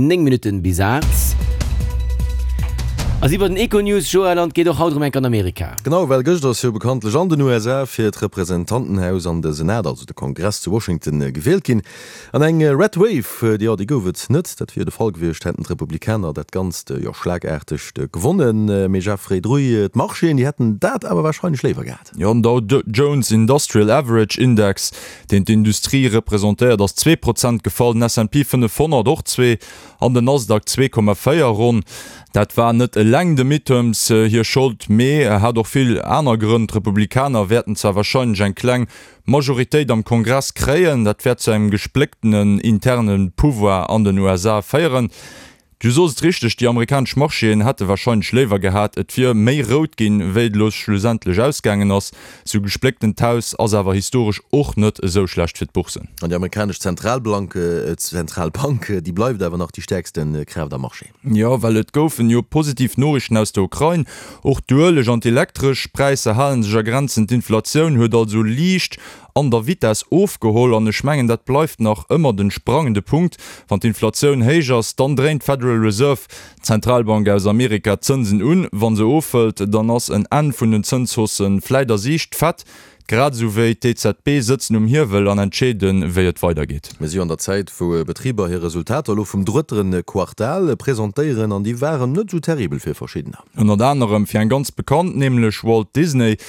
9 Minutten bis 8. A si bei den Econews, Joël, an et geet och haut erëm enk an Amerika. Genau, well gëscht ass jo bekanntlech an den USA fir d'Representantenhaus an de Senat, also de Kongress zu Washington, gewielt ginn. An eng Red Wave, jo, déi gouf et net. Dat wier de Fall gewiescht, hätten d'Republikaner dat Ganzt jo schlagaarteg gewonnen. Mee Jeffrey Druy, d'Marchéen, déi hätten dat awer warscheinlech léiwer gehat. Jo, den Dow Jones Industrial Average Index, deen d'Industrie representéiert, ass 2% gefall, den S&P 500 och zwee an den Nasdaq 2,4 ronn. Dat war net eleng de Midterms hir Schold, mee hat och vill aner Grënn. D'Republikaner wäerten zwar warscheinlech eng kleng Majoritéit am Kongress kréien, dat wäert zu engem gesplécktenen interne Pouvoir an den USA féieren. Du sos et richteg, déi amerikanesch Marchéen hätte warscheinlech léiwer gehat, et wier méi rout ginn, wéi et elo schlussendlech ausgaangen ass. Sou gesplécktent Haus ass awer historesch och net esou schlecht fir d'Boursen. An déi amerikanesch Zentralblank, Zentralbank, déi bleift awer nach déi stäerkste Kraaft am Marché. Jo, well et goufen jo positiv Noriichten aus der Ukrain. Och d'Ueleg an d'Elektresch Präisser hale sech a Grenzen. D'Inflatioun huet also liicht an der Vitess ofgeholl an ech mengen, dat bleift nach ëmmer den sprangende Punkt. Wann d'Inflatioun héich ass, dann dréint d'Federal Reserve, d'Zentralbank aus Amerika, d'Zënsen un. Wa se ofhëlt, dann ass en Enn vun den Zënshaussë vläit a Siicht. D'Fed, grad esou wéi d'EZB, sëtzen um Hiewel an entscheeden, wéi et weidergeet. Mir si jo an der Zäit, wou Betriber hir Resultater elo vum drëtteren Quartal presentéieren an déi waren net esou terribel fir verschiddener. Ënnert anerem fir eng ganz bekannt, nämlech Walt Disney.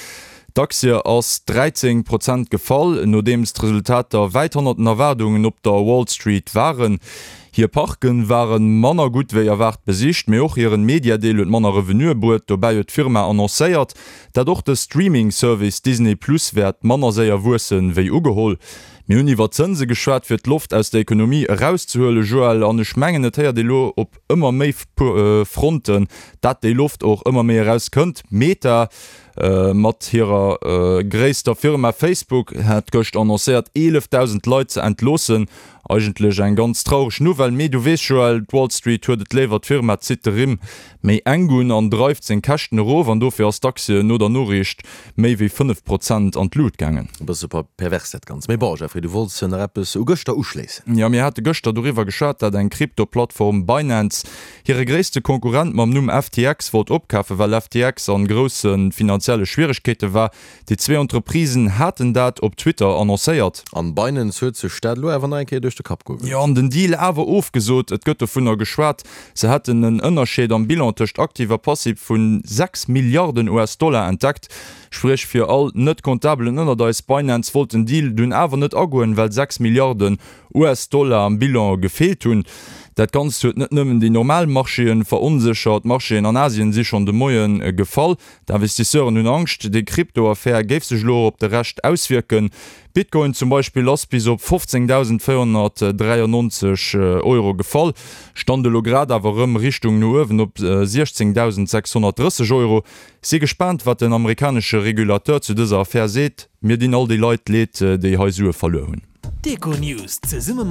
D'Aktie ass 13 Prozent gefall, nodeems d'Resultater wäit hannert den Erwaardungen op der Wall Street waren. Hir Parke ware manner gutt wéi erwaart besicht, mee och hiren Mediadeel huet manner Revenuë bruet. Dobäi huet d'Firma annoncéiert, dat och de Streaming-Service Disney Plus wäert manner séier wuessen, wéi ugeholl. Mir hunn iwwer Zënse geschwat, fir d'Loft aus der Ekonomie erauszehuelen, Joël, an ech mengen, et héiert ee lo op ëmmer méi Fronten, dat déi Loft och ëmmer méi erauskënnt. Meta Mat hirer gréisster Firma Facebook hat gëscht annoncéiert 11.000 Leit ze entloossen. Eigentlech eng ganz traureg Nouvelle, mee du weess Joël, d'Wall Street huet et léiwer, d'Firma zitt de Rimm méi enk un an dreift seng Käschten erof an dofir ass d'Aktie no der Noriicht méi wéi 5 Prozent an d'Lut gaangen. E bësse pervers dat Ganzt. Mee bon, Jeffrey, du wollts nach eppes u gëschter uschléissen. Jo, mir hate gëschter doriwwer geschwat, dat eng Krypto-Plattform Binance Hire gréisste Konkurrent mam Numm FTX wollt opkafen, well FTX an grousse finanzielle Schwieregkeete war. Déi zwee Entreprisen haten dat op Twitter annoncéiert. An Binance huet sech dat elo awer nach eng Kéier duerch de Kapp goe gelooss. Jo, an den Deal awer ofgesot. Et gëtt dovunner geschwat, se hätten en Ënnerscheed am Bilan tëscht Aktiv a Passiv vu 6 Milliarden US-Dollar entdeckt. Spréch fir all Net-Comptabelen ënnert eis, Binance wollt den Deal dunn awer net agoen, well 6 Milliarden US-Dollar am Bilan gefeelt hunn. Dat Ganzt huet net nëmmen déi normal Marchéen veronséchert, d'Marchéen an Asien si schonn de Moie gefall. D'Investisseuren hunn Angscht, déi Krypto-Affär géif sech elo och op de Rescht auswierken. Bitcoin zum Beispill ass bis op 15.493 Euro gefall, stand elo grad awer erëm Richtung no uewen op 16.630 Euro. Si gespaant, wat den amerikanesche Regulateur zu dëser Affär seet. Mir dinn all déi Leit leed, déi hei Sue verluer hunn. D'Econews zesumme.